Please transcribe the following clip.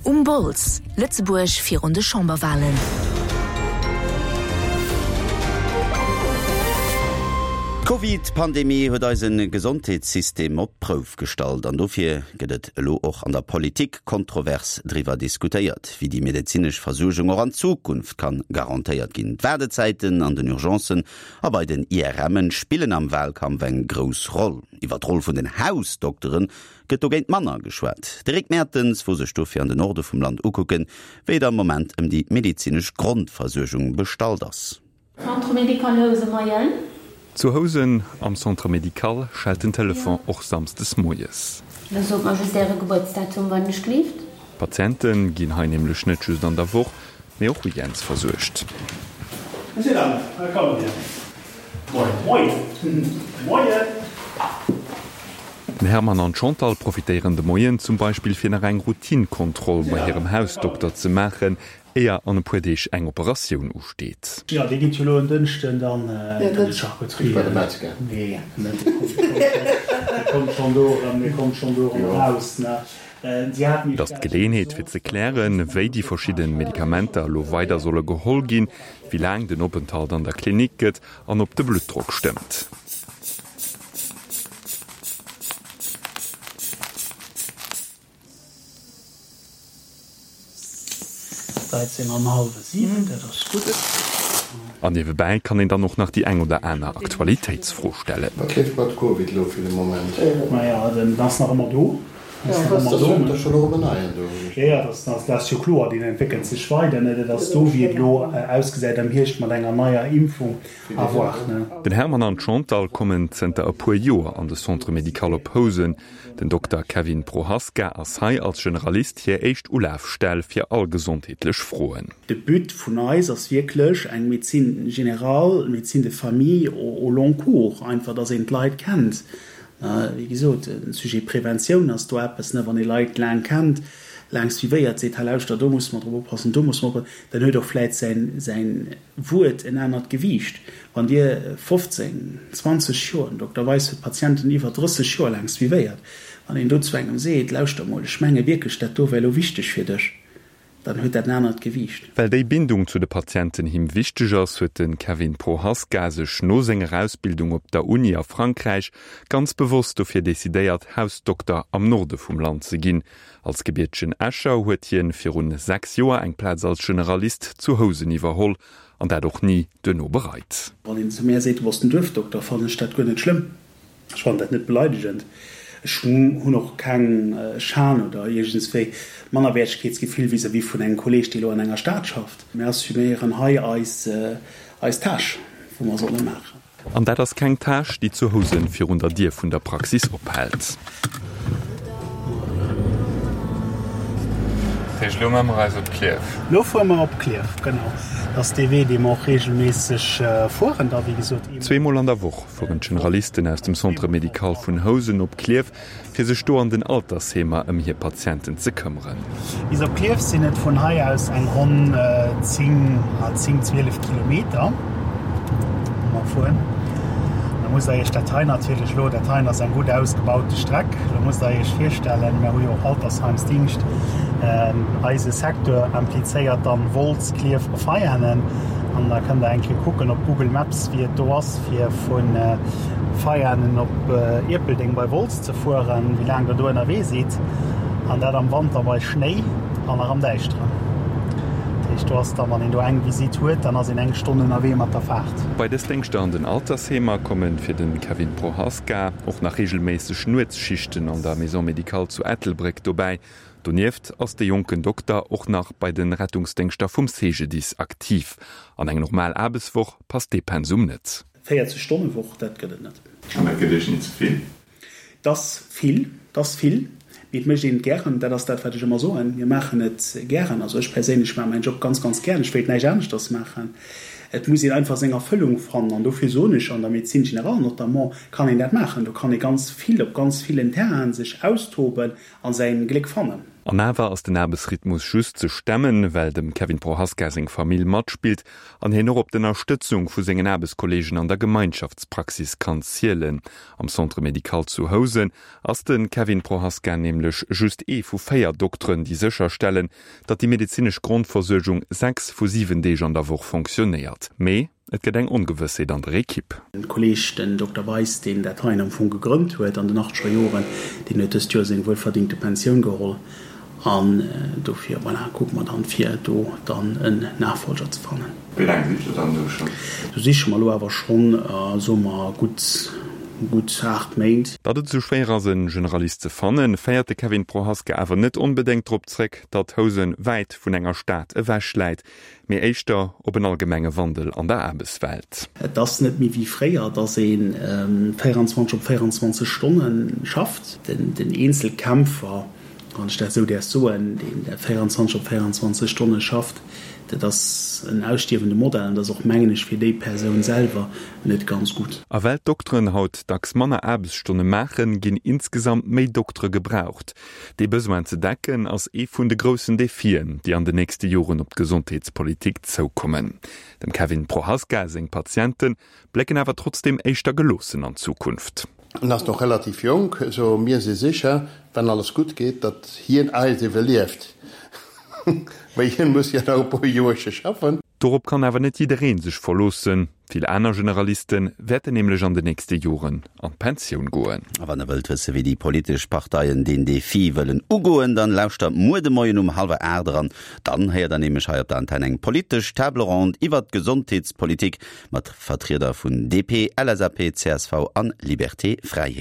Um Bols, Lëtzebuerg virun de Chamberwalen. D'Covid-Pandemie huet eise Gesondheetssystem op d'Prouf gestallt an dofir gëtt et elo och an der Politik kontrovers driwwer diskutéiert, wéi déi medezinesch Versuergung och an Zukunft kann garantéiert ginn. D'Waardezäiten an den Urgencen a bei den IRMen spillen am Walkampf eng grouss Roll. Iwwer d'Roll vun den Hausdokteren gëtt dogéint manner geschwat. De Rick Mertens wor sech dofir an de Norde vum Land ukucken, wéi et am Moment ëm déi medezinesch Grondversuergung bestallt ass. Centre médical Housen, Moien. Zu Housen am Centre médical schellt den Telefon och samsdes moies. Da sot mer just Äre Gebuertsdatum, wann ech gleeft. D'Patiente ginn hei nämlech net just an der Woch, mee och weekends versuergt. Monsieur, Dames, kommt hier. Moien. Moien. Moien. Den Hermann an d'Chantal profitéieren de Moien zum Beispill fir nach eng Routinekontroll bei hirem Hausdokter ze maachen, éier an e puer Deeg eng Operatioun usteet. Jo, dee geet jo elo en Dënschden dann an de Charcuterie. Nee, net de Dee kommt schonn do erëm, dee kommt schonn do erëm eraus, ne? Et ass d'Geleeënheet fir ze klären, wéi déi verschidde Medikamenter elo weider solle geholl ginn, wéi laang den Openthalt an der Klinik gëtt an ob de Bluttdrock stëmmt. Dreizéng an hallwe siwen, dat ass gutt. An niewebäi kann een dann och nach déi eng oder aner Aktualitéitsfro stellen. Wat leeft mat Covid elo fir de Moment? Maja, den ass nach ëmmer do. Ass dat jo scho erëm en neien do? Jo, jo, dat ass jo kloer, deen entwéckelt sech weider. Dat ass do, wéi et elo ausgesäit am Hierscht mat enger neier Impfung, à voir. Den Hermann an d'Chantal kommen zënter e puer Joer an de Centre médical op Housen. Den Dokter Kevin Prohaska ass hei als Generalist hir éischt Ulafstell fir all gesondheetlech Froen. De But vun eis ass wierklech eng Médecine générale, médecine de famille au long cours, einfach dass een d'Leit kennt. Wéi gesot, de Sujet Preventioun ass do eppes, wann ee Leit laang kennt, laang suivéiert, seet, hei lauschter, do musse mer drop oppassen, do musse mer oppassen, dann huet och vläit säin, säin Wuert en anert Gewiicht. Wann Dir 15, 20 Joer, den Dokter Weis huet Patienten iwwer 30 Joer laang suivéiert, wann een do zu engem seet, lauschter mol, ech menge wierklech, dat do wär elo wichteg fir dech, dann huet dat en anert Gewiicht. Well déi Bindung zu de Patienten him wichteg ass, huet de Kevin Prohaska sech no senger Ausbildung op der Uni a Frankräich ganz bewosst dofir decidéiert, Hausdokter am Norde vum Land ze ginn. Als gebiertegen Escher huet hien virun 6 Joer eng Plaz als Generalist zu Housen iwwerholl an dat och ni duerno bereit. Wann een zu mär seet, du bass den Duerfdokter, fannen ech dat guer net schlëmm. Ech fannen dat net beleidegend. Ech hunn och keng Schan oder iergendswéi Mannerwäertegkeetsgefill vis-à-vis vun engem Kolleeg, dee elo an enger Stad schafft. Mir assuméieren hei eis Tâche, wou mer solle maachen. An dat ass keng Tâche, déi zu Housen virun der Dier vun der Praxis ophält. Dat heescht, elo maache mer eis op Klierf? Elo fuere mer op Klierf, genau. Dat ass dee Wee, dee mer och reegelméisseg fueren da, wéi gesot. Zweemol an der Woch fueren d'Generalisten aus dem Centre médical vun Housen op Klierf, fir sech do an den Altersheemer ëm hir Patienten ze këmmeren. Bis op Klierf sinn et vun hei aus eng ronn 10, 10, 12 Kilometer, wou mer fueren. Da musst der iech dat hei natierlech elo, dat heien ass eng gutt ausgebaute Streck, elo musst der iech virstellen, mir hu jo och Altersheimsdingscht, eise Secteur implizéiert dann Wolz, Klierf a Veianen an da kënnt der eng Kéier kucken op Google Maps, wéi et do ass fir vu Veianen op Ierpeldeng bei Wolz ze fueren, wéi laang der do ënnerwee sidd, an dat am Wanter bei Schnéi an nach am Däischteren. Dat heescht, do ass dann, wann een do eng Visitt huet, dann ass een eng Stonn ënnerwee mat der Faart. Bei dës Déngschter an den Altersheemer komme fir de Kevin Prohaska och nach reegelméisseg Nuetsschichten an der Maison médicale zu Ettelbréck dobäi. Donieft ass de jonken Dokter och nach bei de Rettungsdéngschter vum CGDIS aktiv. An eng normal Aarbechtswoch passt dee Pensum net. 40 Stonne Woch, dat gëtt et net. An dat gëtt Iech ni ze vill? 't ass vill, 't ass vill, mee et mécht een et gären. Dat ass dat, wat ech ëmmer soen, Mir maachen et gären. Also ech perséinlech maache mäin Job ganz, ganz gären. Ech wéilt näischt aneschters maachen. Et muss een einfach seng Erfëllung fannen. An dofir soen ech, an der Médecine générale notamment kann een dat maachen. Do kann ee ganz vill op ganz villen Terrainen sech austoben a säin Gléck fannen. An awer ass den Aarbechtsrhythmus just ze stemmen, well dem Kevin Prohaska seng Famill matspillt an hien och op d'Ënnerstëtzung vu sengen Aarbechtskolleegen an der Gemeinschaftspraxis kann zielen. Am Centre médical zu Housen ass de Kevin Prohaska nämlech just ee vu 4 Dokteren, déi sécherstellen, datt déi medezinesch Grondversuergung 6 vu 7 Deeg an der Woch fonctionnéiert. Mee et gëtt eng Ongewëssheet an der Ekipp. Den Kolleg, den Dokter Weis, deen dat heien am Fong gegrënnt huet an den achtzeger Joren, deen huet dëst Joer seng wuelverdingte Pensioun geholl an dofir, voilà, kucke mer dann, fir do dann en Nachfolger ze fannen. Wéi laang sicht Der dann do schonn? Do siche mer elo awer schonn, soe mer, gutt, gutt 8 Méint. Datt et esou schwéier ass, e Generalist ze fannen, féiert de Kevin Prohaska awer net onbedéngt drop zréck, datt Housen wäit vun enger Stad ewech läit, mee éischter op en allgemenge Wandel an der Aarbechtswelt. Et ass net méi wéi fréier, datt ee 24 op 24 Stonne schafft. Den Eenzelkämpfer, wann ech dat esou däerf soen, deen 24 op 24 Stonne schafft, dat ass en ausstierwende Modell an dat ass och, mengen ech, fir déi Persoun selwer net ganz gutt. A well d'Dokteren haut dacks manner Aarbechtsstonne maachen, ginn insgesamt méi Doktere gebraucht. Dee Besoin ze decken, ass ee vun de groussen Defien, déi an de nächste Joren op d'Gesondheetspolitik zoukommen. Dem Kevin Prohaska seng Patiente blécken awer trotzdeem éischter geloossen an d'Zukunft. En ass nach relativ jonk, sou mir si sécher, wann alles gutt geet, datt hien eis iwwerlieft. Mee hien muss jo nach e puer Joerche schaffen. Dorop kann awer net jidderee sech verloossen. Vill aner Generaliste wäerten nämlech an de nächste Joren an d'Pensioun goen. A wann der wëllt wësse wéi déi politesch Parteien deen Defi wëllen ugoen, dann lauschtert muer de Moien um hallwer 8 eran. Dann héiert der nämlech hei op der Antenn eng politesch Table ronde iwwert d'Gesondheetspolitik mat Vertrieder vun DP, LSAP, csv an Liberté Fräiheet.